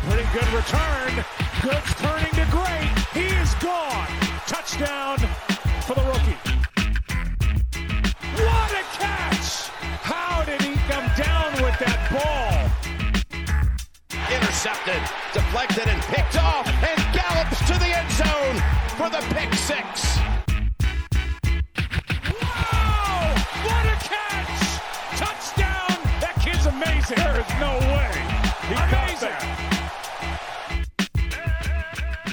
Pretty good return. Good turning to great. He is gone. Touchdown for the rookie. What a catch! How did he come down with that ball? Intercepted, deflected, and picked off, and gallops to the end zone for the pick 6. Wow! What a catch! Touchdown! That kid's amazing. There is no way. He amazing.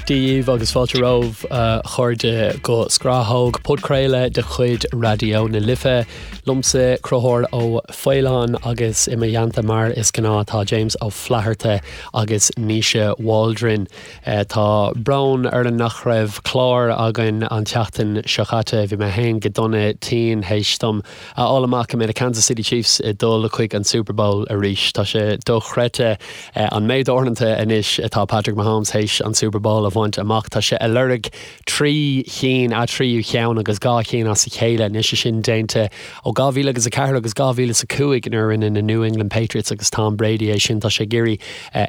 Dia dhaoibh agus fáilte romhaibh a chairde go Scrathóg, podchraoladh de chuid Raidió na Life. Liomsa Conchúr Ó Faoláin agus i mo theannta mar is gnáth tá James Ó Flatharta agus Naoise Waldron. Tá brón orainn nach raibh clár againn an tseachtain seo caite. Bhí mé féin go dona tinn théis dom a fháil amach go mbeidh na Kansas City Chiefs ag dul chuig an Super Bowl arís. Tá sé dochreidte an méid uaireanta anois atá Patrick Mahomes théis an Super Bowl a bhaint amach. Tá sé ag lorg 3 chinn, a thríú cheann agus 2 chinn as a chéile anois, é sin déanta ó 2004 agus 2005 nuair a rinne na New England Patriots agus Tom Brady é sin. Tá sé ag iarraidh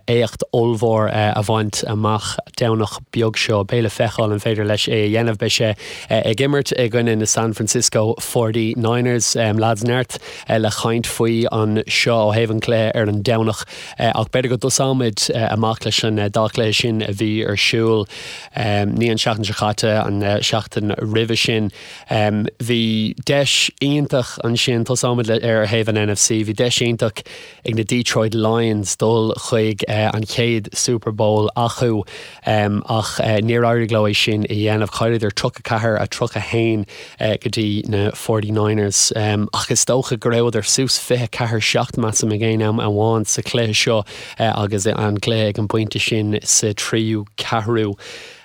éacht ollmhór a bhaint amach Domhnach beag seo. Beidh le feiceáil an féidir leis é a dhéanamh. Beidh sé ag imirt i gcoinne na San Francisco Forty Niners. Lads, neart le caint faoi anseo ó thaobh an chluiche ar an Domhnach ach b'fhéidir go dtosóimid amach leis an dá chluiche sin a bhí ar siúl ní an tseachtain seo caite, an seachtain roimhe sin. Bhí deis iontach ansin, tosóimid ar thaobh an NFC, bhí deis iontach ag na Detroit Lions dul chuig an chéad Super Bowl acu ach níor éirigh leo é sin a dhéanamh. Chailleadar 34, 31 go dtí na Forty Niners ach is dócha go rabhadar suas 24, 7 measaim ag aon am amháin sa chluiche seo agus an cluiche ag an bpointe sin sa tríú ceathrú.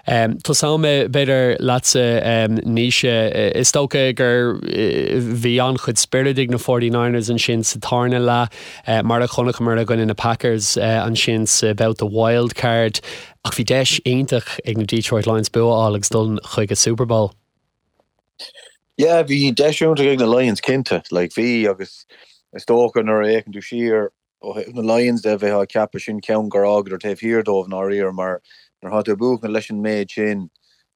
Tosóidh mé, b'fhéidir, leatsa, Naoise. Is dócha gur bhí an-chuid spioraid ag na Forty Niners ansin sa tarna leath, mar a chonaiceamar i gcoinne na Packers ansin sa babhta wild card. Ach bhí deis iontach ag na Detroit Lions bua a fháil agus dul chuig an Super Bowl. Yeah, bhí deis iontach ag na Lions, cinnte. Like, bhí, agus is dócha nuair a fhéachann tú siar, Ó thaobh na Lions de, bheifeá ag ceapadh sin ceann gur fhágadar taobh thiar dóibh i ndáiríre mar nuair atá tú ag buachan leis an méid sin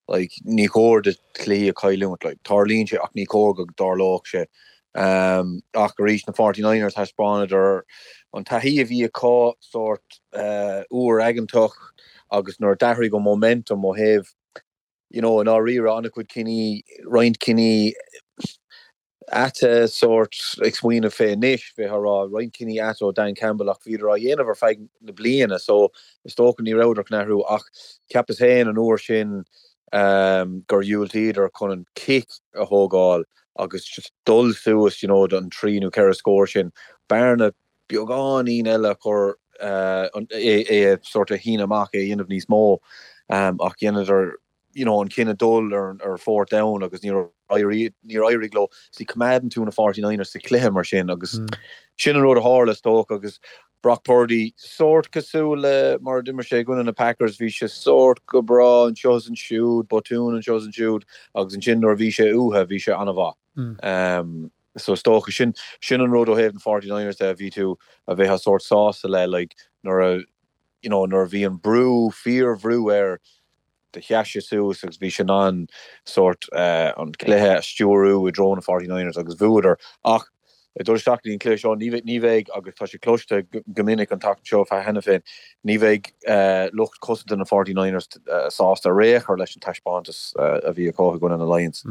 like ní chóir duit cluichí a chailliúint. Like tarlaíonn sé ach ní chóir go dtarlódh sé. Um, ach arís na Forty Niners thaispeánadar an taithí a bhí acu sórt uh, uair aigeantach agus nuair a d'athraigh an momentum ó thaobh you know, i ndáiríre an-chuid cinní, roinnt cinní ait sórt ag smaoineamh fé anois, bheifeá ag rá roinnt cinní ait ó Dan Campbell ach bhíodar á dhéanamh ar feadh na bliana so is dócha ní rabhadar chun athrú ach cheapas féin an uair sin gur dhiúltaíodar chun an cic a thógáil agus just dul suas you know don trí nó ceithre scór sin, bearna beagáinín eile a chur é a sort of shíneadh amach, é a dhéanamh níos mó ach dheineadar you know, an cinneadh dul ar ar fourth down agus níor éirigh níor éirigh leo. See, coimeádann tú na Forty Niners sa chluiche mar sin agus sin an rud a tharla is dócha agus Brock Purdy sórt cosúil le mar a d'imir sé i gcoinne na Packers, bhí sé sórt go breá anseo is ansiúd, botún anseo is ansiúd agus ansin nuair a bhí sé uathu bhí sé an-mhaith. Um, so is dócha sin sin an rud ó thaobh na Forty Niners de a bhí tú a bheifeá sórt sásta le like nuair a you know nuair a bhí an brú fíorbhrú air do sheas sé suas agus bhí sé in ann sórt an cluiche a stiúrú i dtreo na Forty Niners agus bhuadar. Ach ag dul isteach go dtí an cluiche seo, ní ní bheidh, agus tá sé cloiste go minic an tseachtain seo cheana féin, ní bheidh lucht cosanta na Forty Niners sásta ar aon chor leis an taispeántas a bhí acu i gcoinne na Lions.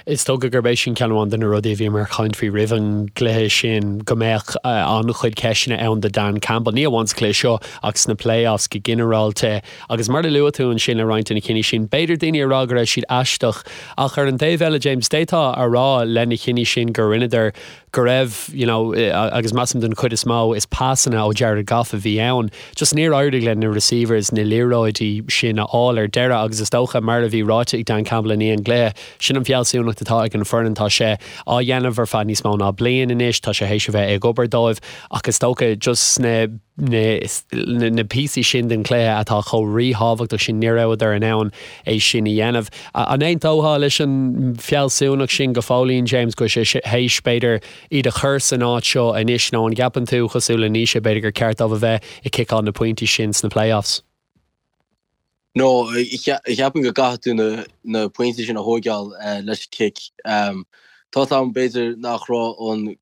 Is dócha gurb é sin ceann amháin de na rudaí a bhíomar ag caint faoi roimh an gcluiche sin, go mbeadh an-chuid ceisteanna ann do Dan Campbell, ní amháin sa chluiche seo ach sna playoffs go ginearálta. Agus mar a luaigh tú ansin le roinnt de na cinní sin, b'fhéidir daoine ag rá go raibh siad aisteach ach ar an taobh eile, James, d'fhéadfá a rá le na cinní sin gur rinneadar go raibh, you know, agus measaim den chuid is mó, is pasanna ó Jared Goff a bhí ann. Just níor éirigh le na receivers na liathróidí sin a fháil ar deireadh agus is dócha, mar a bhí ráite ag Dan Campbell i ndiaidh an gcluiche, sin an. fealsúnacht atá ag an foireann, tá sé á dhéanamh ar feadh níos mó ná bliain anois, tá sé théis a bheith ag obair dóibh ach is dócha just na na píosaí sin den chluiche atá chomh ríthábhachtach sin, ní rabhadar in ann é sin a dhéanamh. An aontófá leis an bhfealsúnacht sin go fóillín, James, go bhfuil sé théis, b'fhéidir, iad a chur san áit seo anois nó an gceapann tú, cosúil le Naoise, b'fhéidir gur ceart dóibh a bheith ag ciceáil na pointí sin sna playoffs? No, cheapfainn go gcaithfidh tú na pointí sin a thóigeáil leis an cic. Tá 's agam b'fhéidir nach raibh an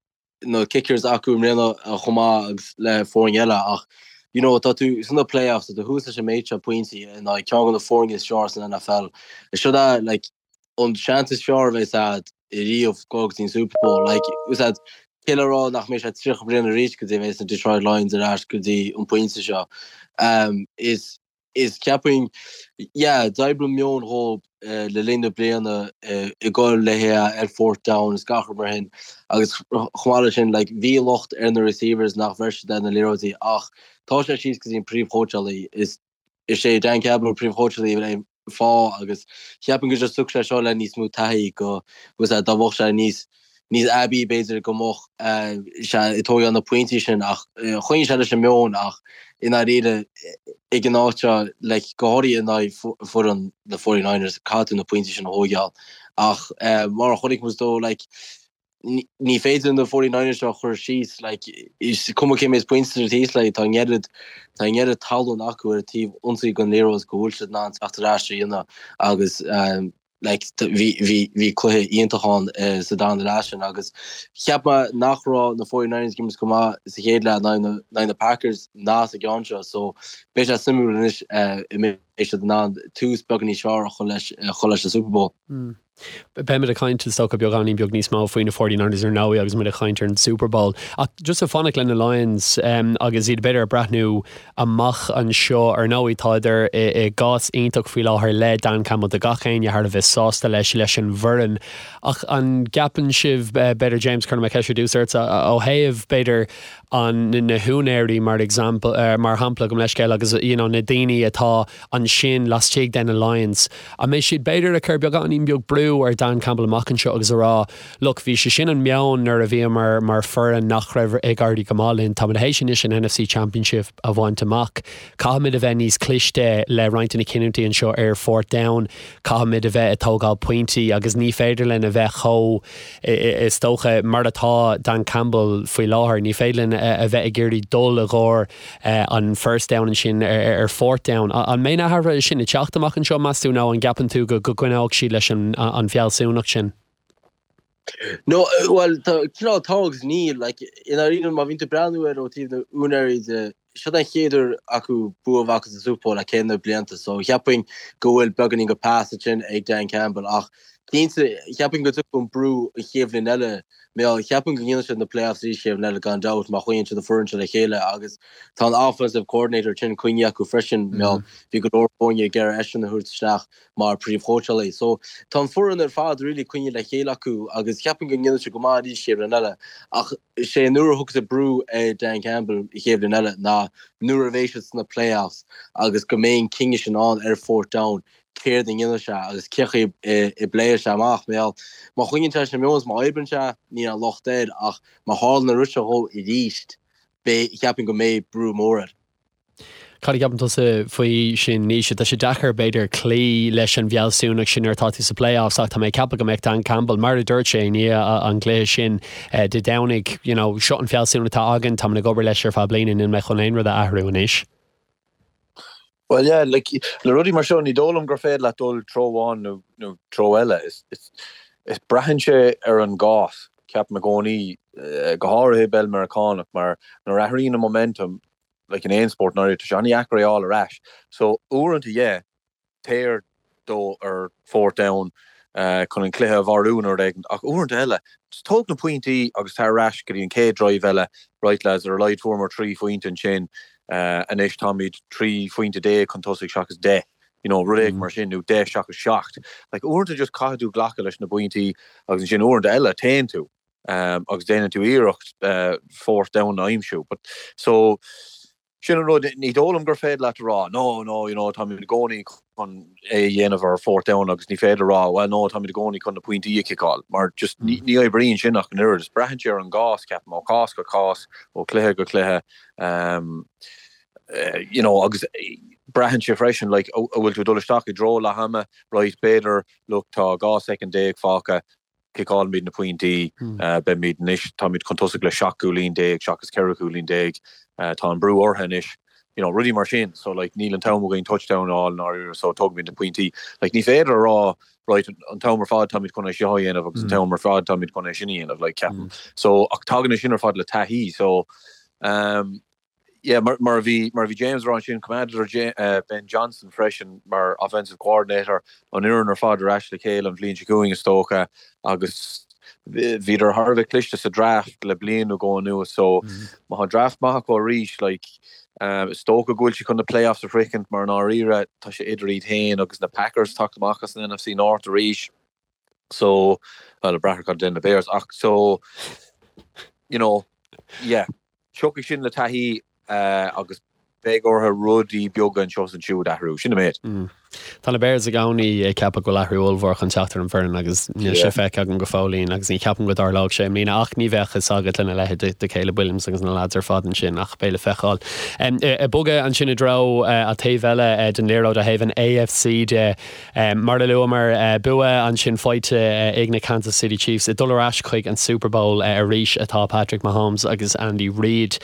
na kickers acu i mbliana chomh maith agus le foirne eile ach you know tá tú sna playoffs, tá tú thuas leis an méid seo pointí in aghaidh ceann de na foirne is fearr san NFL. Seo é like an seans is fearr a bheas a'd ariamh dul go dtí an Super Bowl. Like, is a'd, cé le rá nach mbeidh sé 30 bliain arís go dtí a bheas na Detroit Lions ar ais go dtí an pointe seo. Um, is, is ceapaim, yeah, d'oibrigh an meon dhóibh eh, le linn na bliana eh, ag goil le hé ar fourth down is gach rud mar shin. Agus chomh maith leis sin, like, bhí locht ar na receivers nach bhfuair siad na liathróidí ach tá sé síos go dtí an príomhchóitseálaí. Is Is é Dan Campbell príomhchóitseálaí an fáth agus cheapfainn go just tiocfaidh sé seo le níos mó taithí go bhfuil sé dá mbeadh sé níos níos aibí b'fhéidir go mbeadh sé ag tógáil na pointí sin ach choinnigh sé leis an meon ach i ndáiríre ag an áit seo like go háirithe in aghaidh foireann na 49ers caithfidh tú na pointí sin a thógáil ach mar a chonaic muid dó like ní féidir na 49ers seo a chur síos, like, is cuma cé méid pointe atá thíos, like, tá an oiread, tá an oiread tallann acu ar an taobh ionsaí den liathróid go bhfuil siad in ann teacht ar ais a dhéanamh agus um, like, bhí, bhí, bhí cluiche iontach ann uh, sa darna leath sin agus cheap mé nach raibh na 49ers ag imirt go maith sa chéad leath in aghaidh na, in aghaidh na Packers ná sa gceann seo so beidh sé suimiúil anois uh, an mbeidh siad in ann tús beag níos fearr a chur leis, a chur leis an Super Bowl. Mm. Beimid ag caint is dócha beagáinín beag níos mó faoi na 49ers ar ndóigh agus muid ag caint ar an Super Bowl. Ach just ag fanacht le na Lions agus iad b'fhéidir ag breathnú amach anseo ar ndóigh tádar i gcás iontach faoi láthair le Dan Campbell tá gach éinne thar a bheith sásta leis leis an bhfoireann. Ach an gceapann sibh b'fhéidir James cuirfidh mé ceist ar dtús ortsa ó thaobh b'fhéidir an na húinéirí mar example mar shampla gabh mo leithscéal agus you know na daoine atá ansin laistigh de na Lions an mbeidh siad b'fhéidir ag cur beagáinín beag brú ar Dan Campbell amach anseo agus a rá look bhí sé sin an meon nuair a bhíomar mar foireann nach raibh ag éirí go maith linn táimid théis anois an NFC Championship a bhaint amach caithfimid a bheith níos cliste le roinnt de na cinniúintí anseo ar fourth down caithfimid a bheith ag tógáil pointí agus ní féidir linn a bheith chomh Is dócha, mar atá Dan Campbell faoi láthair, ní féidir linn a bheith ag iarraidh dul i gcomhair an first down ansin ar fourth down. An mbeidh na hathruithe sin ag teacht amach anseo, meas tú, nó an gceapann tú go gcoinneoidh siad leis an bhfealsúnacht sin? No, bhuel, tá, cineál tá agus níl. Like, i ndáiríre, má bhíonn tú ag breathnú air ó taobh na úinéirí de, Seo an chéad uair acu bua a bheith acu sa Super Bowl le céad na blianta so cheapfainn go bhfuil beagáinín de pass ansin ag Dan Campbell ach cinnte cheapfainn go dtiocfaidh an brú an chéad bhliain eile mar cheapfainn go ndéanfaidh siad na playoffs arís chéad bhliain eile gan dabht má choinníonn siad an foireann seo le chéile agus tá an offensive coordinator sin coinnithe acu freisin mar bhí go leor foirne ag iarraidh eisean a thabhairt isteach mar príomhchóitseálaí. So tá an foireann ar fad really coinnithe le chéile acu agus cheapfainn go ndéanfaidh siad go maith arís chéad bhliain eile ach sé nuair a thiocfas an brú ar Dan Campbell an chéad bhliain eile ná nuair a bheidh siad sna playoffs agus go mbeidh an cinneadh sin ann ar fourth down céard a dhéanfaidh sé agus cén chaoi a bpléifidh sé amach. Mar má choinníonn sé leis an meon is má oibríonn sé níl aon locht air ach má tharlaíonn an rud seo dhó arís beidh cheapfainn go mbeidh brú mór air. Cad a cheapann tusa faoi sin, Naoise? Tá sé deacair, b'fhéidir, cloí leis an bhfealsúnacht sin nuair atá tú sa playoffs ach tá mé ag ceapadh go mbeadh Dan Campbell, mar a dúirt sé i ndiaidh an gcluiche sin Dé Domhnaigh, you know, seo an fealsúnacht atá againn, táimid ag obair leis ar feadh bliana, níl mé chun aon rud a athrú anois. Bhuel, yeah, like, le rudaí mar seo, ní dóigh liom gur féidir leat dul treo amháin nó, nó treo eile. Is, is, is braitheann sé ar an gcás, ceapaim i gcónaí, go háirithe i bpeil Meiriceánach, mar nuair a athraíonn an momentum, like in aon spórt ndáiríre, tá sé an-dheacair é a fháil ar ais. So uaireanta yeah, téir dó ar fourth down chun an cluiche a mharú nó rud éigin, ach uaireanta eile, just tóg na pointí agus tar ar ais go dtí an chéad drive eile, right lads, ar a laghad fuaireamar 3 phointe ansin, anois táimid 13 phointe chun tosaigh seachas 10, you know, rud éigin mar sin, nó 10 seachas 7. Like uaireanta just caithfidh tú glacadh leis na pointí agus ansin uaireanta eile téann tú. agus déanann tú iarracht fourth down a aimsiú. But so. Sin an rud, ní dóigh liom gur féidir leat a rá, no, no, you know, táimid i gcónaí chun é a dhéanamh ar fourth down agus ní féidir a rá, well, no, táimid i gcónaí chun na pointí a chiceáil, mar just ní oibríonn sin ach an oiread. Is braitheann sé ar an gcás, ceapaim, ó chás go cás, ó chluiche go cluiche, you know, agus braitheann sé freisin, like, an bhfuil tú ag dul isteach i dtreo leath ama, right, b'fhéidir, look, tá 12 soicind fágtha, Ciceálfaimid na pointí. Beimid anois, táimid chun tosaigh le 17 cúilín seachas 14 chúilín. Tá an brú orthu anois. You know, rudaí mar sin. So, like, níl an t-am againn touchdown a fháil i ndáiríre, so tógfaimid na pointí. Like, ní féidir a rá, right, an t-am ar fad táimid chun é seo a dhéanamh agus an t-am ar fad táimid chun é sin a dhéanamh, like, ceapaim. So, ach tagann é sin ar fad le taithí. So, um, Yeah, mar mar a bhí mar a bhí James a rá ansin, coimeádadar Ben Johnson freisin mar offensive coordinator, an fhoireann ar fad ar ais le chéile an bhliain seo chugainn is dócha agus bhíodar thar a bheith cliste sa draft le bliain nó dhó anuas so má tá draft maith acu arís like is dócha go bhfuil siad chun na playoffs a shroichint mar i ndáiríre tá sé idir iad féin agus na Packers teacht amach as an NFC North arís so well ag brath ar cad a dhéanann na Bears ach so you know yeah. Tiocfaidh sin le taithí agus beidh orthu rudaí beaga anseo is ansiúd a athrú. Sin an méid. Tá na Bears i gcónaí ag ceapadh go bhfuil athrú ollmhór chun teacht ar an bhfoireann agus níl sé feicthe agam go fóillín agus ní cheapaim go dtarlóidh sé i mbliana ach ní bheadh fhios agat lena leithéid de Caleb Williams agus na leaids ar fad ansin ach beidh le feiceáil. Ag bogadh ansin i dtreo an taobh eile den liathróid ó thaobh an AFC de, Mar a luamar, bua ansin faighte ag na Kansas City Chiefs. Ag dul ar ais chuig an Super Bowl arís atá Patrick Mahomes agus Andy Reid.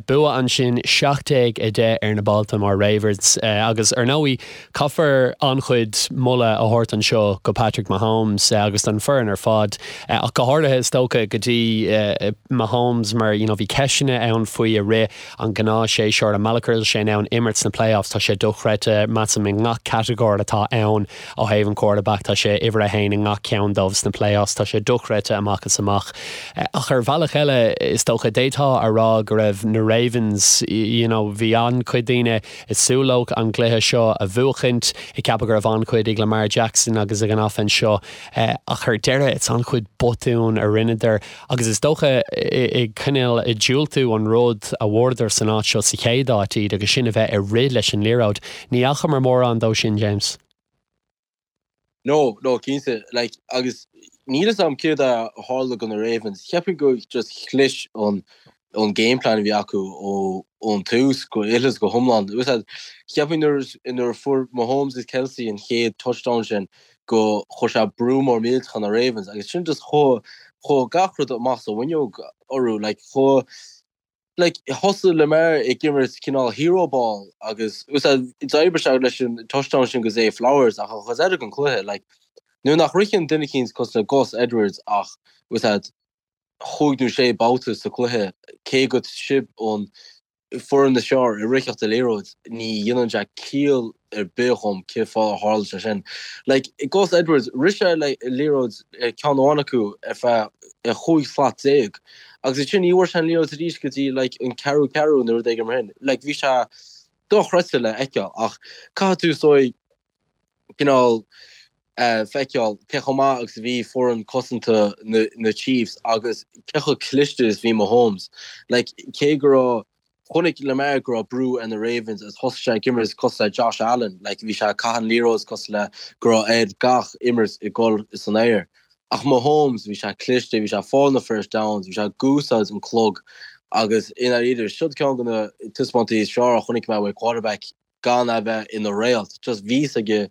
Bua ansin 17-10 ar na Baltimore Ravens agus ar ndóigh caithfear an-chuid moladh a thabhairt anseo go Patrick Mahomes agus don foireann ar fad ach go háirithe is dócha go dtí Mahomes mar you know bhí ceisteanna ann faoi i rith an gnáthshéasúr, an mbealach go raibh sé in ann imirt sna playoffs, tá sé dochreidte, measaim, i ngach catagóir atá ann ó thaobh an quarterback, tá sé uimhir a haon i ngach ceann dóibh sna playoffs, tá sé dochreidte amach is amach. Ach ar bhealach eile, is dócha, d'fhéadfá a rá go raibh na Ravens, you know, bhí an-chuid daoine ag súil leo an gcluiche seo a bhuachaint, ag ceapadh go raibh an-chuid ag Lamar Jackson agus ag an offense seo, ach ar deireadh, it's an-chuid botún a rinneadar. Agus is dócha ag cineál ag diúltú an rud a bhfuaireadar san áit seo sa chéad áit iad agus sin a bheith ag rith leis an liathróid. Ní fhacamar mórán dó sin, James. No, no, cinnte. Like, agus níl fhios a'm céard a tharla do na Ravens. Cheapfainn go just chlis an an game plan a bhí acu ó ón tús go uile is go hiomlán. Cheapfainn nuair nuair a fuair Mahomes is Kelce an chéad touchdown sin go chuir sé brú mór millteach ar na Ravens agus sin just chuaigh chuaigh gach rud amach as an bhfuinneog orthu like chuaigh like thosaigh Lamar ag imirt cineál hero ball agus d'oibrigh sé leis an touchdown sin go Zay Flowers ach an chuid eile den chluiche like nuair nach ritheann duine eicínt cosúil le Gus Edwards ach chúig nó sé babhta sa chluiche cé go sibh an foireann is fearr i ritheacht an liathróid, ní dhéanann sé ciall ar bith dhom cén fáth ar tharla sé sin. Like, Gus Edwards, rith sé le liathróid ceann amháin acu ar feadh chúig slat déag agus ansin ní bhfuair sé an liathróid arís go dtí like an ceathrú ceathrú nó rud éigin mar sin. Like, bhí sé dochreidte le feiceáil ach caithfidh tú is dóigh cineál feiceáil cé chomh maith agus a bhí foireann cosanta na Chiefs agus cé chomh cliste is bhí Mahomes. Like, cé go raibh, chonaic Lamar go raibh brú ar na Ravens agus thosaigh sé ag imirt cosúil le Josh Allen, like, bhí sé ag caitheamh an liathróid cosúil le go raibh air gach imirt ag dul san aer. Ach Mahomes, bhí sé cliste, bhí sé ag fáil na first downs, bhí sé ag úsáid an clog agus i ndáiríre, siod ceann de na taispeántaí is fearr a chonaic mé uaidh quarterback gan a bheith ina réalt. Just bhí fhios aige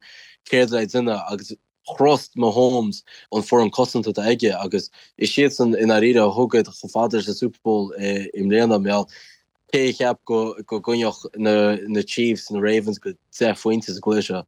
céard le déanamh agus thrust Mahomes an foireann cosanta atá aige agus is iadsan i ndáiríre a thug iad chomh fada leis an Super Bowl i mbliana. Mar cé a cheap go gcoinneodh na Chiefs na Ravens go 10 phointe sa gcluiche seo?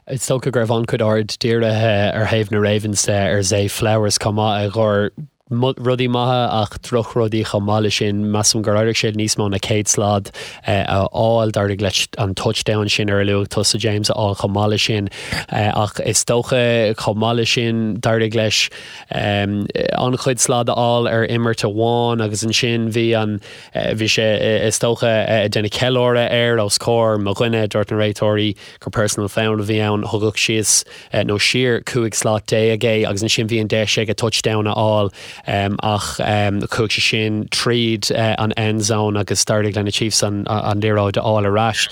Is dócha go raibh an-chuid aird dírithe ar thaobh na Ravens de ar Zay Flowers chomh maith a ghoir rudaí maithe ach drochrudaí chomh maith leis sin. Measaim gur éirigh sé níos mó ná 100 slad a fháil. D'éirigh leis an touchdown sin ar a luaigh tusa, James, a fháil chomh maith leis sin. Ach is dócha chomh maith leis sin d'éirigh leis an-chuid slad a fháil ar imirt amháin agus ansin bhí an, bhí sé is dócha ag déanamh ceiliúradh air os comhair mo dhuine, dúirt na réiteoirí gur personal foul a bhí ann, thugadh síos nó siar 15 slat é agus ansin bhí an deis aige touchdown a fháil. Ach chuaigh sé sin tríd an end zone agus d'éirigh le na Chiefs an liathróid a fháil ar ais.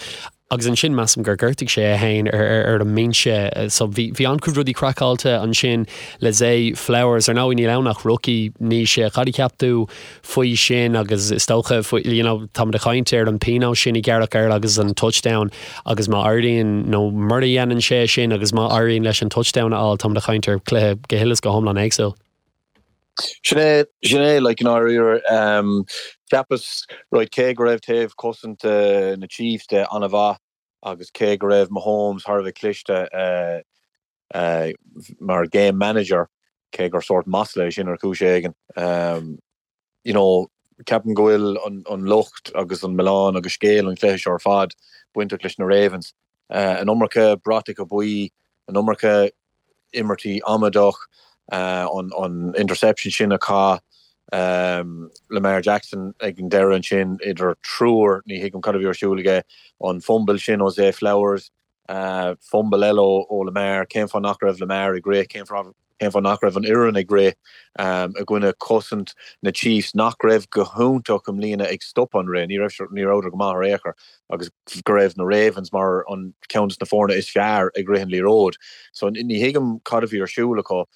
Agus ansin measaim gur ghortaigh sé é féin ar an mbinse. So bhí bhí an-chuid rudaí craiceáilte ansin le Zay Flowers. Ar ndóigh níl ann ach rookie, Naoise. Cad a cheap tú faoi sin agus is dócha faoi you know táimid ag caint ar an pionós sin a gearradh air agus an touchdown agus má éiríonn nó mura dhéanann sé sin agus má éiríonn leis an touchdown a fháil táimid ag caint ar chluiche go huile is go hiomlán éagsúil. Sin é, sin é, like, i ndáiríre, cheapas, right, cé go raibh taobh cosanta na Chiefs de an-mhaith agus cé go raibh Mahomes thar a bheith cliste mar game manager, cé gur sórt masla é sin ar chúis éigin, you know, ceapaim go bhfuil an locht agus an milleán agus scéal an chluiche seo ar fad bainteach leis na Ravens. An iomarca bratacha buí, an iomarca imirtí amaideach, an interception sin a chaith Lamar Jackson ag an deireadh ansin idir triúr, ní thuigim cad a bhí ar siúl aige, an fumble sin ó Zay Flowers, Fumble eile ó Lamar. Cén fáth nach raibh Lamar ag rith? Cén fáth nach raibh an fhoireann ag rith i gcoinne cosaint na Chiefs nach raibh go hiontach i mbliana ag stop an rith? Ní raibh, ní rabhadar go maith ar aon chor agus go raibh na Ravens mar an ceann de na foirne is fearr ag rith an liathróid. So ní thuigim cad a bhí ar siúl acu.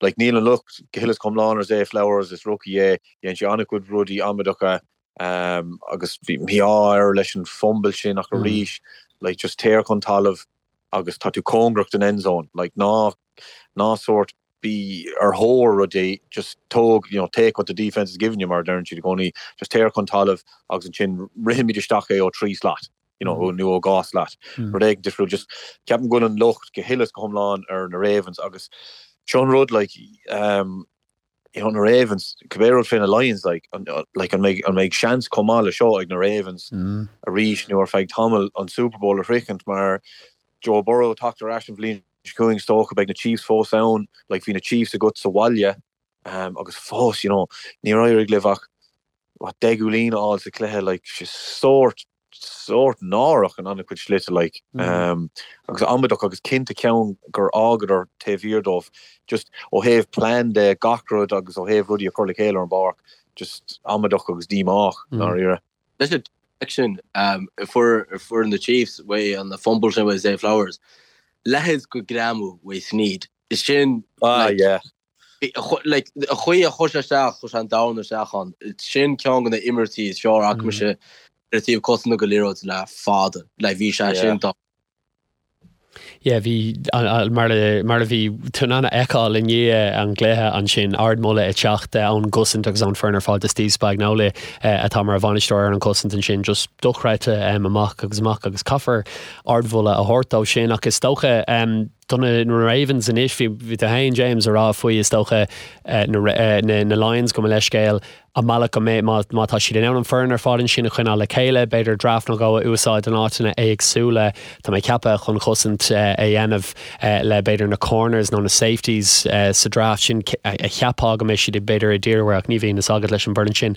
Like níl an locht go huile is go hiomlán ar Zay Flowers, is rookie é, dhein sé an-chuid rudaí amaideacha agus bhí mí-ádh air leis an fumble sin ach arís like just téir chun talamh agus tá tú cóngarach don end zone like ná ná sórt bí ar thóir rudaí just tóg you know take what the defence is giving you mar a deireann siad i gcónaí just téir chun talamh agus ansin rithimid isteach é ó 3 slat. you know, nó ó 2 slat. Rud éigin difriúil. Just ceapaim go bhfuil an locht go huile is go hiomlán ar na Ravens agus seo an rud like um, you know, na Ravens, cibé rud fé na Lions like, an, like, an mbeidh, an mbeidh seans chomh maith le seo ag na Ravens mm. arís nó ar feadh tamaill an Super Bowl a shroichint mar Joe Burrow teacht ar ais an bhliain seo chugainn is dócha beidh na Chiefs fós ann, like bhí na Chiefs agat sa bhaile um, agus fós, you know, níor éirigh libh ach what, 10 gcúilín a fháil sa chluiche, like, sórt sórt náireach in an-chuid slite like agus amaideach agus cinnte ceann gur fhágadar taobh thiar dóibh just ó thaobh plean de gach rud agus ó thaobh rudaí a chur le chéile ar an bpáirc just amaideach agus díomách ndáiríre. Leis an sin fuair fuair na Chiefs uaidh an fumble sin uaidh Zay Flowers leithéid de ghreamú uaidh Sneed sin ah yeah. Like, an chaoi a chuir sé isteach, chuir sé an domhan isteach ann. Sin ceann de na imirtí is fearr a fhaca mise ar taobh cosanta de liathróid le fada. Like, bhí sé sin dá. Yeah, bhí, mar a, mar a bhí tú in ann a fheiceáil i ndiaidh an gcluiche ansin, ardmholadh ag teacht ón gcosaint agus ón foireann ar fad do Steve Spagnuolo atá mar bhainisteoir ar an gcosaint ansin, just dochreidte amach agus amach agus caithfear ardmholadh a thabhairt dó sin ach is dócha, Do na Ravens anois, bhí tú féin, James, ag rá faoi, is dócha, na Lions, gabh mo leithscéal, an mbealach go mbeidh, má tá siad in ann an foireann ar fad ansin a choinneáil le chéile, b'fhéidir draft nó dhó a úsáid in áiteanna éagsúla, tá mé ag ceapadh, chun cosaint a dhéanamh le b'fhéidir na corners nó na safeties sa draft sin a cheapfá go mbeidh siad b'fhéidir ag díriú air ach ní bhíonn fhios agat leis an bhfoireann sin.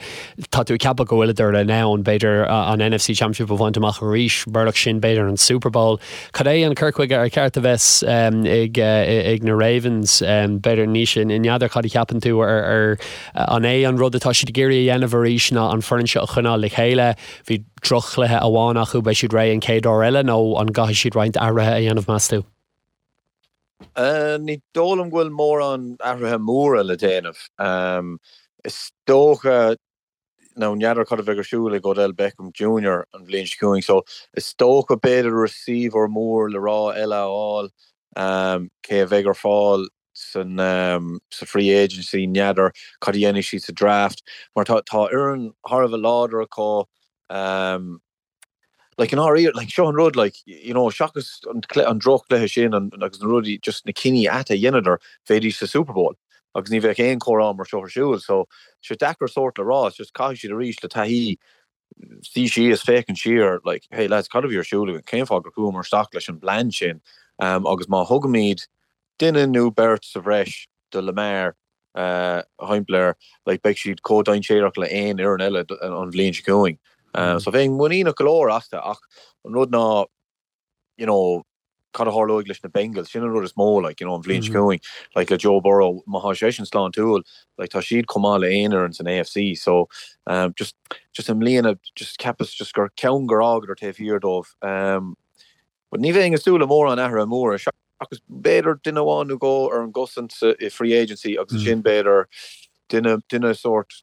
Tá tú ag ceapadh go bhfuileadar in ann, b'fhéidir, an NFC Championship a bhaint amach arís, murach sin, b'fhéidir an Super Bowl. Cad é an cur chuige ar cheart a bheith ag na Ravens? B'fhéidir, Naoise, n'fheadar cad a cheapann tú ar an é an rud atá siad ag iarraidh a dhéanamh arís ná an foireann seo a choinneáil le chéile? Bhí droch-chluiche amháin acu, beidh siad réidh an chéad uair eile nó an gcaithfidh siad roinnt athruithe a dhéanamh, meas tú? Ní dóigh liom go bhfuil mórán athruithe móra le déanamh. Is dócha, nó n'fheadar cad a bheidh ar siúl ag Odell Beckham Junior an bhliain seo chugainn, so is dócha b'fhéidir receiver mór le rá eile a fháil, cé a bheidh ar fáil san sa free agency, n'fheadar cad a dhéanfaidh siad sa draft, mar tá tá fhoireann thar a bheith láidir acu. Like, i ndáiríre, like, seo an rud, like, you know, seachas an an droch-chluiche sin an, agus na rudaí, just na cinní aite a dheineadar, bheidís sa Super Bowl agus ní bheadh aon chomhrá mar seo ar siúl. So, sé deacair sórt le rá, it's just caithfidh siad arís le taithí suí síos, féachaint siar, like, hey lads, cad a bhí ar siúl againn, cén fáth gur chuamar isteach leis an bplean sin? Um, agus má thugaimid duine nó beirt sa bhreis do Lamar, thimpeall air, like, beidh siad chomh dainséarach le aon fhoireann eile an bhliain seo chugainn. So bheinn muiníneach go leor astu ach an rud ná, you know, cad a tharlóidh leis na Bengals, sin an rud is mó, like, you know, an bhliain seo chugainn, like, le Joe Burrow, má thá seisean sláintiúil, like, tá siad chomh maith le aon fhoireann san AFC, so, um, just, just i mbliana, just cheapas just gur ceann gur fhágadar taobh thiar dóibh, um, but ní bheinn ag súil le mórán athruithe móra, seachas b'fhéidir duine amháin nó dhó ar an gcosaint sa, i free agency agus ansin b'fhéidir duine, duine sórt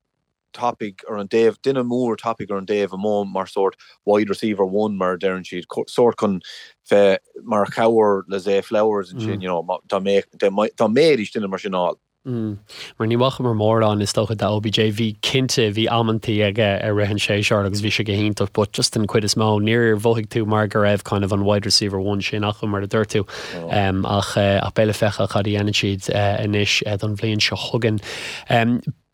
tapaidh ar an dtaobh, duine mór tapaidh ar an dtaobh amuigh mar sórt wide receiver one mar a deireann siad, sórt chun bheith mar chabhair le Zay Flowers ansin, you know, dá mbeadh, dá mbeidís duine mar sin a fháil. Mar ní bhfacamar mórán is dócha de OBJ, bhí cinnte, bhí amantaí aige i rith an tséasúir agus bhí sé go hiontach but just den chuid is mó níor mhothaigh tú mar go raibh kind of an wide receiver one sin acu mar a dúirt tú. Ach ach beidh le feiceáil cad a dhéanann siad anois don bhliain seo chugainn.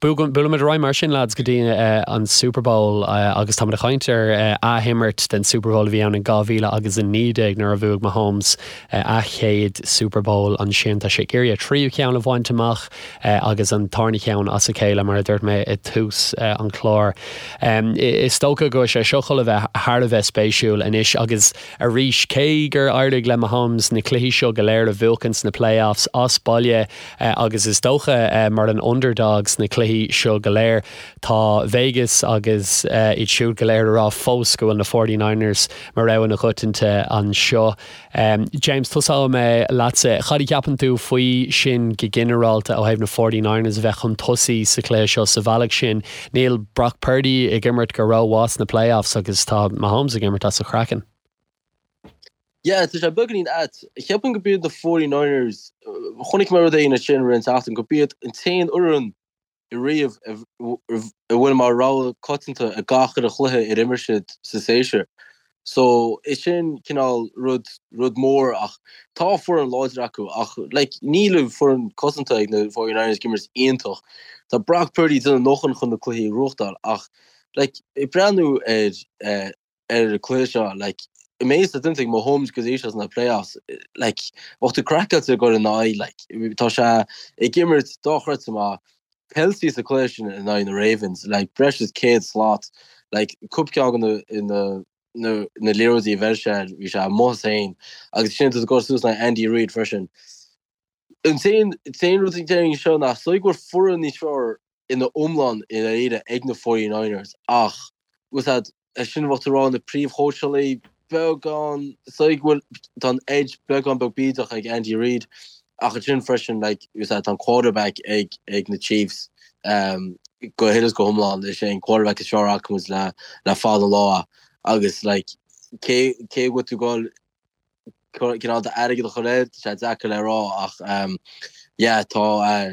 Buailimid ar aghaidh mar sin, lads, go dtí an Super Bowl agus táimid ag caint ar athimirt den Super Bowl a bhí ann in 2019 nuair a bhuaigh Mahomes a chéad Super Bowl ansin. Tá sé ag iarraidh a thríú ceann a bhaint amach agus an tarna cheann as a chéile, mar a dúirt mé i dtús an chláir. Is dócha go bhfuil sé seo chun a bheith thar a bheith spéisiúil anois agus arís, cé gur éirigh le Mahomes na cluichí seo go léir a bhuachan sna playoffs as baile, agus is dócha mar an underdog sna cluichí seo go léir, tá Vegas agus iad siúd go léir ag rá fós go bhfuil na Forty Niners mar rogha na coitianta anseo. James, tosóidh mé leatsa. Cad a cheapann tú faoi sin go ginearálta ó thaobh na Forty Niners a bheith chun tosaigh sa chluiche seo sa bhealach sin? Níl Brock Purdy ag imirt go rómhaith sna playoffs agus tá Mahomes ag imirt as a chraiceann. Yeah, tá sé beagáinín ait. Cheapfainn gurb iad na 49ers, chonaic mé rud éigin ansin roimh an tseachtain, gurb iad an t-aon fhoireann ariamh a bhfuil mar rogha coitianta i gach uile chluiche ar imir siad sa séasúr. So, is sin cineál rud, rud mór ach tá foireann láidir acu ach like níl an foireann cosanta ag na 49ers ag imirt iontach. Tá Brock Purdy ag déanamh a ndóthain chun na cluichí a ghnóthachtáil ach like ag breathnú ar eh, ar an cluiche seo, like, an méid atá déanta ag Mahomes go dtí seo sna playoffs, like, bheadh tú craiceáilte ag dul ina aghaidh, like, tá sé ag imirt dochreidte maith, Kelce sa cluiche sin in aghaidh na Ravens, like, breis is 100 slat, like, cúpla ceann de na, na, na, na liathróidí a bheir sé air, bhí sé amuigh as féin, agus ansin tá tú ag dul suas in aghaidh Andy Reid freisin. An t-aon, t-aon rud a déarfainn seo ná, is dóigh go bhfuil foireann níos fearr ina iomlán i ndáiríre ag na 49ers ach bhfuil a fhios agat, é sin bheadh tú ag rá na príomhchóitseálaí beagán is dóigh go bhfuil tá an edge beagán beag bídeach ag Andy Reid ach ansin freisin like bhfuil a fhios agat tá an quarterback ag ag na Chiefs um, go huile is go hiomlán is é an quarterback is fearr acu le le fada an lá agus like cé cé go bhfuil tú ag dul cineál d'airgead a chur air, tá sé deacair le rá ach yeah tá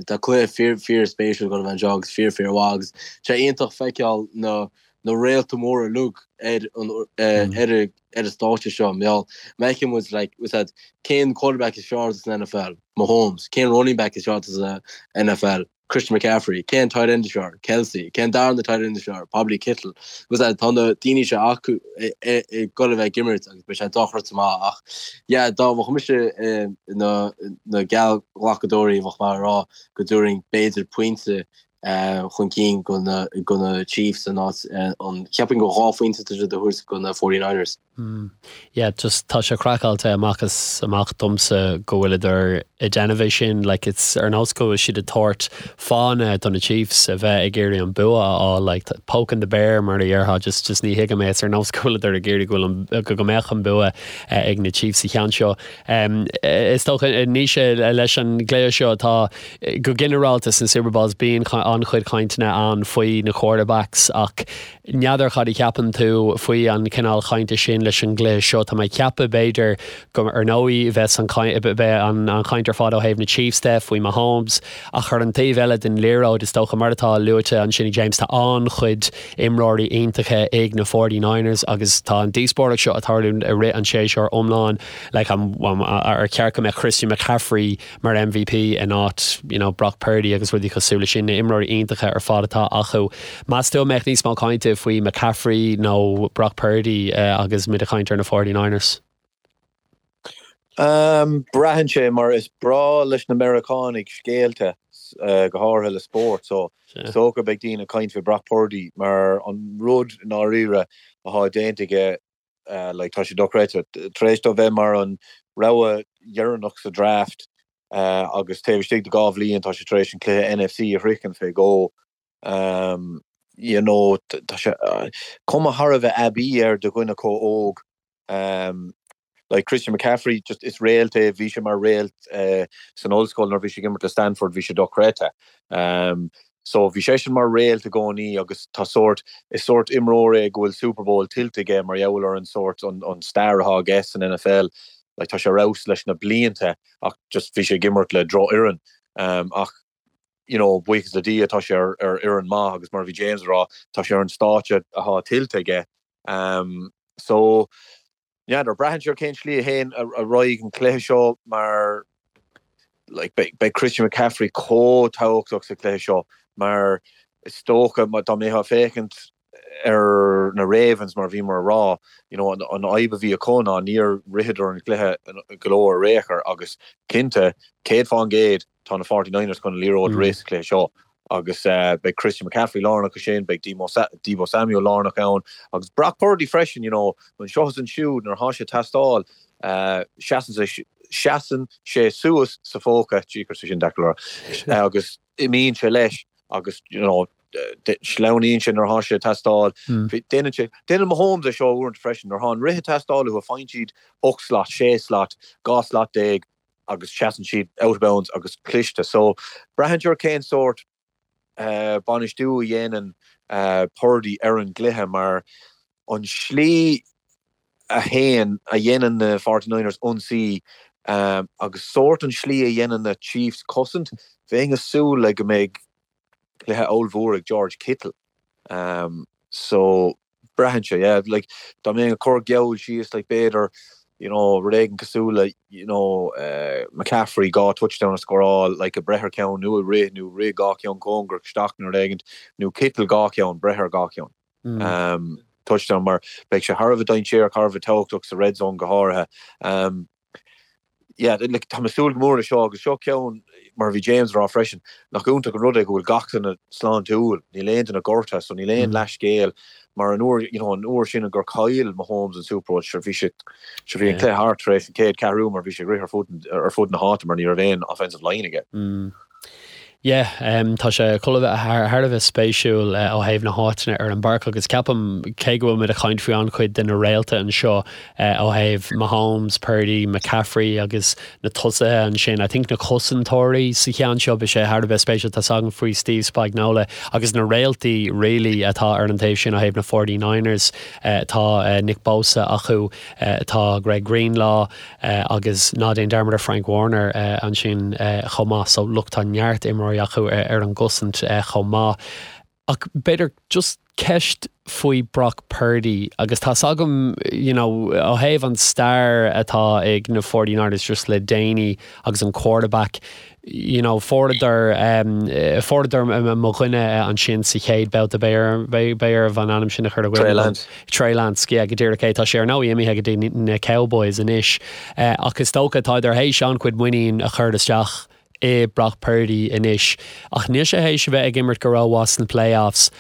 tá cluiche fíor fíor spéisiúil ag dul a bheith anseo agus fíor fíor mhaith agus sé iontach feiceáil na na réalta móra uilig ar an ar ar an stáitse seo mar gheall má fheiceann muid like bhfuil a fhios agat cén quarterback is fearr san NFL? Mahomes. Cén running back is fearr sa NFL? Christian McCaffrey, cén tight end is fearr? Kelce, cén darna tight end is fearr? Probably Kittle. Agus tá na daoine seo acu ag dul a bheith ag imirt agus beidh sé dochreidte maith ach yeah dá mbeadh mise na na geallghlacadóirí bheadh mé ag rá go dtabharfainn b'fhéidir pointe chun cinn go na go na Chiefs in áit an cheapfainn go 2 phointe atá siad a thabhairt go na 49ers. Yeah, just tá sé craiceáilte amach is amach domsa go bhfuileadar ag déanamh é sin, like it's ar nós go bhfuil siad ag tabhairt fáthanna do na Chiefs a bheith ag iarraidh an bua a fháil, like poking the bear mar a dhéarfá, just just ní thuigim é, it's ar nós go bhfuileadar ag iarraidh go bhfuil an go go mbeadh an bua ag na Chiefs sa cheann seo. Is dócha Naoise leis an gcluiche seo tá go ginearálta sna Super Bowls bíonn an-chuid cainteanna ann faoi na quarterbacks ach N'fheadar cad a cheapann tú faoi an chineál chainte sin leis an gcluiche seo. Tá mé ag ceapadh, b'fhéidir, go, ar ndóigh, bheas an beidh an chaint ar fad ó thaobh na Chiefs de, faoi Mahomes, ach ar an taobh eile den liathróid, is dócha, mar atá luaite ansin ag James, tá an-chuid imreoirí iontacha ag na 49ers agus tá an díospóireacht seo ag tarlú i rith an tséasúir iomlán, like, an, ar cheart go mbeadh Christian McCaffrey mar MVP in áit you know Brock Purdy agus rudaí cosúil leis sin, na imreoirí iontacha ar fad atá acu. Meas tú an mbeadh níos mó cainte faoi McCaffrey nó Brock Purdy agus muid ag caint ar na 49ers? Um, braitheann sé mar is breá leis na Meiriceánaigh scéalta, go háirithe le spórt, so is dócha beidh daoine ag caint faoi Brock Purdy mar an rud i ndáiríre atá déanta aige like tá sé dochreidte. Tar éis dó bheith mar an. Rogha dheireanach sa draft agus taobh istigh de 2 bhliain tá sé tar éis an cluiche NFC a shroichint fé dhó. You know, tá sé cuma thar a bheith aibí air do dhuine chomh óg. Like Christian McCaffrey, just is réalt é, bhí sé mar réalt san ollscoil nuair a bhí sé ag imirt le Stanford, bhí sé dochreidte. So bhí seisean mar réalt i gcónaí agus tá sórt, is sórt imreoir é go bhfuil Super Bowl tuillte aige mar gheall ar an sórt, an, an stair atá aige san NFL. Like tá sé ar fheabhas leis na blianta ach just bhí sé ag imirt le drochfhoireann. Ach you know, buíochas le Dia tá sé ar, ar fhoireann maith agus mar a bhí James ag rá, tá sé ar an stáitse atá tuillte aige. So, n'fheadar, braitheann sé ar cén slí a théann ar aghaidh an cluiche seo mar like beidh beidh Christian McCaffrey chomh tábhachtach sa chluiche seo mar is dócha dá mbeifeá ag féachaint ar na Ravens mar a bhíomar a rá, you know, an an fhadhb a bhí acu ná níor ritheadar an cluiche go leor ar aon chor agus cinnte, 100% Tá na Forty Niners chun an liathróid a rith sa chluiche seo agus beidh Christian McCaffrey lárnach ansin, beidh Deebo Samuel lárnach ann agus Brock Purdy freisin, you know, anseo is ansiúd nuair atá sé ag teastáil, seasann sé, seasann sé suas sa phóca, jeepers, sin deacair le rá, agus imíonn sé leis agus, you know, sleamhnaíonn sé nuair atá sé ag teastáil. Déanann sé, déanann Mahomes é seo uaireanta freisin, nuair atá an rith ag teastáil uathu, faigheann siad 8 slat, 6 slat, 12 slat, agus seasann siad out of bounds agus cliste. So, braitheann sé ar cén sórt bainistiú a dhéanann Purdy ar an gcluiche mar an slí a théann, a dhéanann na Forty Niners ionsaí agus sórt an slí a dhéanann na Chiefs cosaint, bheinn ag súil le go mbeidh cluiche ollmhór ag George Kittle. So, braitheann sé, yeah, like, dá mbeinn ag cur geall síos, like, b'fhéidir, you know, rud éigin cosúil le, you know, McCaffrey 2 touchdown a scóráil, like, ag breith ar cheann nó ag rith nó rith 2 cheann cóngarach isteach nó rud éigin, nó Kittle 2 cheann, breith ar 2 cheann. Touchdown mar beidh sé thar a bheith dainséarach, thar a bheith tábhachtach sa red zone go háirithe. Yeah, like, tá mé ag súil go mór le seo agus seo ceann, mar a bhí James ag rá freisin, nach iontach an rud é go bhfuil gach duine sláintiúil, níl aon duine gortaithe, so níl aon leathscéal, mar an uair, you know, an uair sin gur chaill Mahomes an Super Bowl, sure bhí sé, sure bhí an cluiche thart tar éis an chéad ceathrú mar bhí sé ag rith ar fud, ar fud na háite mar ní raibh aon offensive line aige. Yeah, tá sé chun a bheith thar a bheith spéisiúil ó thaobh na háiteanna ar an bpáirc agus ceapaim, cé go bhfuil muid ag caint faoi an-chuid de na réalta anseo ó thaobh Mahomes, Purdy, McCaffrey agus na tosaithe ansin, I think na cosantóirí sa cheann seo, beidh sé thar a bheith spéisiúil, tá's againn faoi Steve Spagnuolo agus na réaltaí really atá ar an taobh sin ó thaobh na 49ers, tá Nick Bosa acu, tá Greg Greenlaw, Agus ná déan dearmad ar Frank Warner ansin chomh maith. So look, tá neart imreoirí acu ar an gcosaint chomh maith. Ach b'fhéidir just ceist faoi Brock Purdy agus tá's agam you know ó thaobh an stair atá ag na 49ers just le déanaí agus an quarterback you know, fuaireadar, fuaireadar mo dhuine ansin sa chéad babhta, beidh beidh orm an ainm sin a chur i gcuimhne. Trey Lance. Trey Lance, yeah, go díreach é. Tá sé ar ndóigh imithe go dtí na Cowboys anois. Ach is dócha, tádar théis an-chuid muinín a chur isteach i Brock Purdy anois. Ach níl sé théis a bheith ag imirt go rómhaith sna playoffs.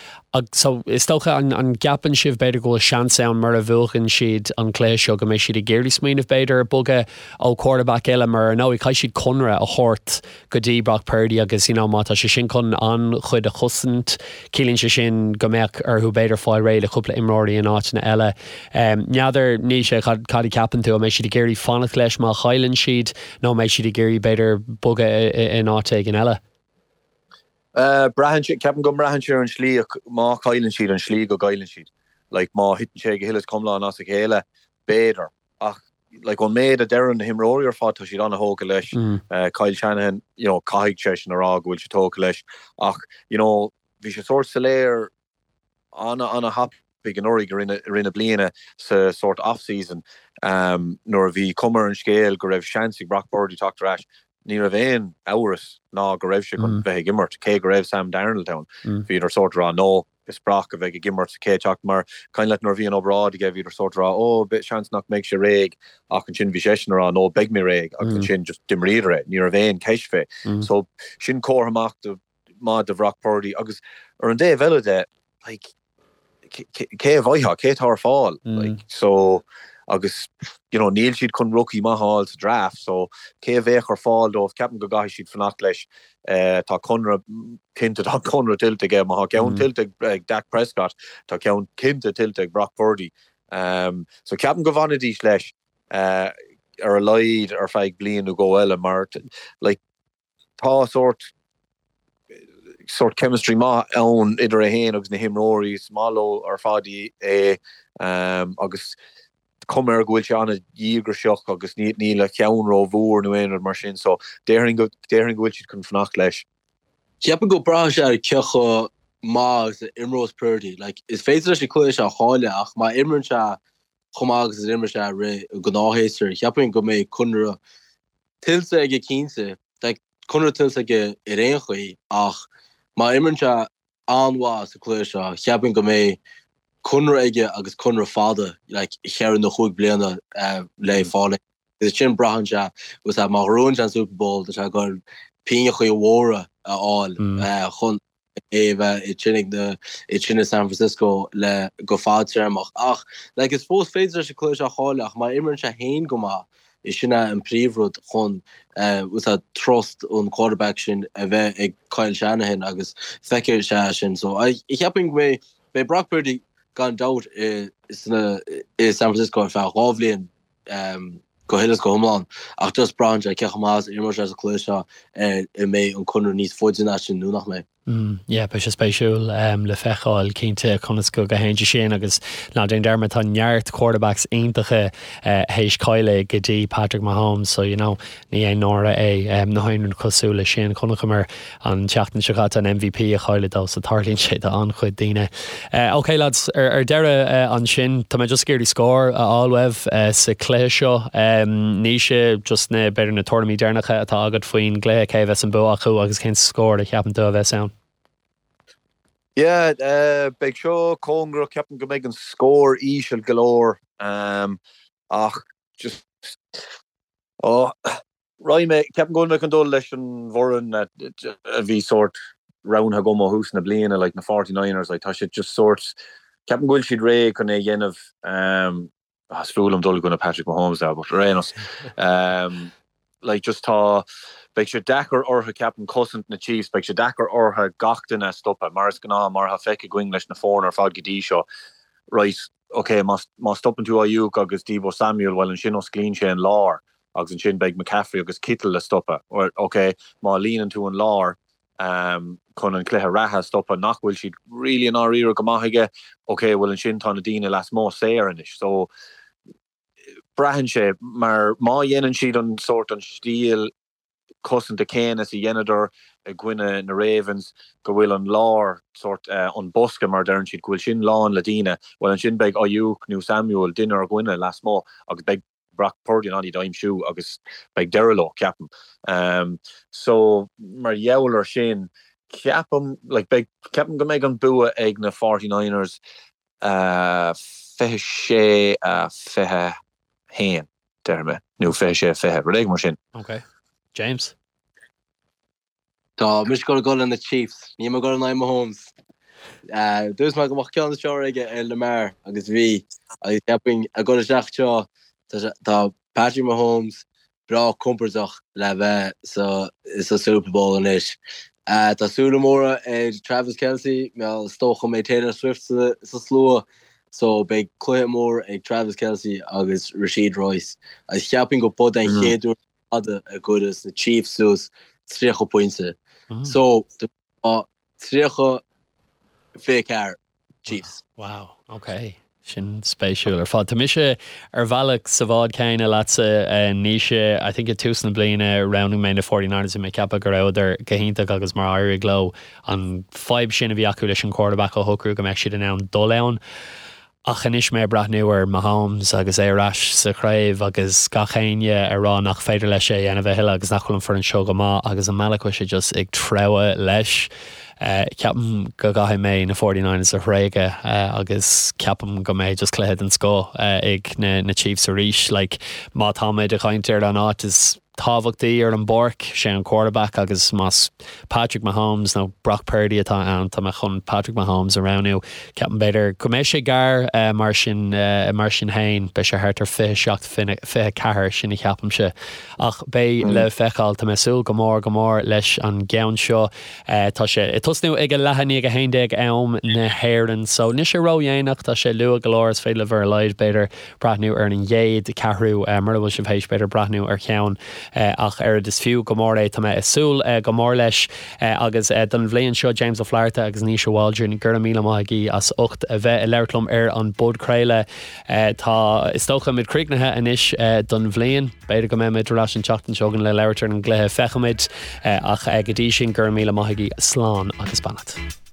So, is dócha, an an gceapann sibh b'fhéidir go bhfuil seans ann mura bhuachann siad an cluiche seo go mbeidh siad ag iarraidh smaoineamh b'fhéidir ar bogadh ó quarterback eile mar ar ndóigh caithfidh siad conradh a thabhairt go dtí Brock Purdy agus you know má tá sé sin chun an-chuid a chosaint ciallaíonn sé sin go mbeadh orthu b'fhéidir fáil réidh le cúpla imreoirí in áiteanna eile. N'fheadar Naoise cad cad a cheapann tú an mbeidh siad ag iarraidh fanacht leis má chailleann siad nó an mbeidh siad ag iarraidh b'fhéidir bogadh in áit éigin eile? Braitheann sé, ceapaim go mbraitheann sé ar an slí, má chailleann siad, an slí go gcailleann siad. Like, má thiteann sé go huile is go hiomlán as a chéile, b'fhéidir. Ach, like, ón méid a deireann na himreoirí ar fad, tá siad an-thógtha leis. Kyle Shanahan, you know, caithfidh seisean a rá go bhfuil sé tógtha leis. Ach, you know, bhí sé sórt soiléir an-an-thapaidh anuraidh i rith na bliana sa sórt off-season nuair a bhí cuma ar an scéal go raibh seans ag Brock Purdy teacht ar ais. Ní raibh aon amhras ná go raibh sé chun bheith ag imirt, cé go raibh Sam Darnold ann. Bhíodar sórt ag rá no, is Brock a bheidh ag imirt sa chéad seachtain mar cuimhin leat nuair a bhí an obráid aige bhíodar sórt ag rá oh seans nach mbeidh sé réidh ach ansin bhí seisean ag rá no beidh mé réidh agus ansin just d'imríodar é. Ní raibh aon cheist fé. So sin comhartha maith do maith do Bhrock Purdy agus ar an dtaobh eile de, like, cé a bhfaighfeá, cé atá ar fáil? Like, so, agus you know níl siad chun rookie maith a fháil sa draft so cé a bheadh ar fáil dóibh ceapaim go gcaithfidh siad fanacht leis. Tá conradh cinnte tá conradh tuillte aige má tá ceann tuillte ag Dak Prescott tá ceann cinnte tuillte ag Brock Purdy. So ceapaim go bhfanfaidís leis ar a laghad ar feadh bliain nó dhó eile mar like tá sórt sórt chemistry maith ann idir é féin agus na himreoirí, is maith leo ar fad é agus cuma air go bhfuil sé an-dhíograiseach agus níl a cheann rómhór nó aon rud mar sin so déarfainn go déarfainn go bhfuil siad chun fanacht leis. Ceapaim go braitheann sé ar cé chomh maith agus a imreos Purdy. Like, is féidir leis an cluiche seo a chailleadh ach má imríonn sé chomh maith agus a d'imir sé i rith an ghnáthshéasúir, cheapfainn go mbeidh conradh tuillte aige cinnte. Beidh conradh tuillte aige ar aon chaoi ach má imríonn sé an-mhaith sa cluiche seo, cheapfainn go mbeidh conradh aige agus conradh fada, like cheithre nó chúig bliana le fáil aige. Agus sin braitheann sé, agus má ghnóthaíonn sé an Super Bowl, tá sé ag goil pingneachaí mhóra a fháil chun é a bheith ansin ag na, ansin i San Francisco le go fadtéarmach. Ach like is fós féidir leis an cluiche seo a chailleadh ach má imríonn sé féin go maith, is sin é an príomhrud chun trust an quarterback sin a bheith ag Kyle Shanahan agus feicfidh sé é sin. So cheapfainn go mbeidh beidh Brock Purdy gan dabht i sna i San Francisco ar feadh 2 bhliain go huile is go hiomlán ach just braitheann sé cé chomh maith is a imreoidh sé sa chluiche seo ar an mbeidh an conradh níos faide ná sin nó nach mbeidh. Yeah, beidh sé spéisiúil le feiceáil cinnte conas go dtéann sé sin agus ná déan dearmad tá neart quarterbacks iontacha théis cailleadh go dtí Patrick Mahomes so you know ní aon náire é ná aon rud cosúil leis sin. Chonaiceamar an tseachtain seo caite an MVP a chailleadh dó so tarlaíonn sé do an-chuid daoine. Ok lads, ar deireadh ansin tá mé just ag iarraidh scór a fháil uaibh sa chluiche seo. Naoise, just na, b'fhéidir na tuairimí deireanacha atá agat faoin gcluiche, cé a bheas an bua acu agus cén scór a cheapann tú a bheas ann? Yeah, beidh seo cóngarach, ceapaim go mbeidh an scór íseal go leor ach just, oh, Raghaidh mé, ceapaim go bhfuil mé chun dul leis an bhfoireann a bhí sórt roghnaithe agam ó thús na bliana, like na 49ers, like tá siad just sórt, ceapaim go bhfuil siad réidh chun é a dhéanamh, ah is fuath liom dul i gcoinne Patrick Mahomes now, but ar aon nós, like just tá, beidh sé deacair orthu ceapaim cosaint na Chiefs, beidh sé deacair orthu gach duine a stopadh, mar is gnáth, mar atá feicthe againn leis na foirne ar fad go dtí seo, right, ok, má má stopann tú Aiyuk agus Deebo Samuel, bhuel ansin osclaíonn sé an lár agus ansin beidh McCaffrey agus Kittle le stopadh. Bhuel, ok, má líonann tú an lár chun an cluiche reatha a stopadh, nach bhfuil siad really i ndáiríre go maith aige, ok, bhuel ansin tá na daoine lasmuigh saor anois. So, braitheann sé, mar má dhéanann siad an sórt, an stíl cosanta céanna is a dheineadar i gcoinne na Ravens, go bhfuil an lár, sórt, an bosca mar a deireann siad, go bhfuil sin lán le daoine, bhuel ansin beidh Aiyuk nó Samuel, duine ar dhuine lasmuigh agus beidh Brock Purdy in ann iad a aimsiú agus beidh deireadh leo, ceapaim. So, mar gheall ar sin, ceapaim, like, beidh, ceapaim go mbeidh an bua ag na 49ers 26 21, déarfaidh mé, nó 26 20, rud éigin mar sin. Ok. James? Tá mise ag dul le na Chiefs. Níl mé ag dul in aghaidh Mahomes. Dúirt mé go mbeadh ceann is fearr aige ar Lamar agus bhí. Agus cheapfainn ag dul isteach seo tá Patrick Mahomes breá compordach le bheith sa sa Super Bowl anois. Tá súile móra ar Travis Kelce, mar is dócha go mbeidh Taylor Swift sa sa slua so beidh cluiche mór ag Travis Kelce agus Rashee Rice. Agus cheapfainn go b'é an chéad uair fada a gcuirfeas na Chiefs suas 30 pointe. So, tá 30 24 Chiefs. Wow, ok. Sin spéisiúil ar fad. Tá mise ar bhealach sa bhád céanna leatsa, Naoise. I think i tús na bliana roghnaigh mé na 49ers, bhí mé ag ceapadh go rabhadar go hiontach agus mar éirigh leo an fadhb sin a bhí acu leis an quarterback a shocrú go mbeadh siad in ann dul ann. Ach anois mé ag breathnú ar Mahomes agus é ar ais sa chraobh agus gach éinne ag rá nach féidir leis é a dhéanamh a thuilleadh agus nach bhfuil an foireann seo go maith agus an bealach go bhfuil sé just ag treabhadh leis, ceapaim go gcaithfidh mé na 49ers a thréigeadh agus ceapaim go mbeidh just cluiche den scoth ag na Chiefs arís. Like má tá muid ag caint ar an áit is. tábhachtaí ar an bpáirc, sé an quarterback agus más Patrick Mahomes nó Brock Purdy atá ann, tá mé chun Patrick Mahomes a roghnú. Ceapaim b'fhéidir go mbeidh sé gar mar sin mar sin féin, beidh sé thart ar 27, 24, sin a cheapaimse. Ach beidh le feiceáil. Tá mé ag súil go mór go mór leis an gceann seo. Tá sé ag tosnú ag a leath i ndiaidh a 11 am na hÉireann so níl sé ródhéanach, tá sé luath go leor, is féidir libh ar a laghad b'fhéidir breathnú ar an gcéad ceathrú mura bhfuil sibh théis b'fhéidir breathnú ar cheann ach oiread. Is fiú go mór é, tá mé ag súil go mór leis agus don bhliain seo James Ó Flatharta agus Naoise Waldron, go raibh míle maith agaibh as ucht a bheith ag labhairt liom ar an bpodchraoladh. Tá, is dócha, muid críochnaithe anois don bhliain. B'fhéidir go mbeidh muid ar ais an tseachtain seo chugainn le labhairt ar an gcluiche, feicfimid. Ach go dtí sin, go raibh míle maith agaibh, slán agus beannacht.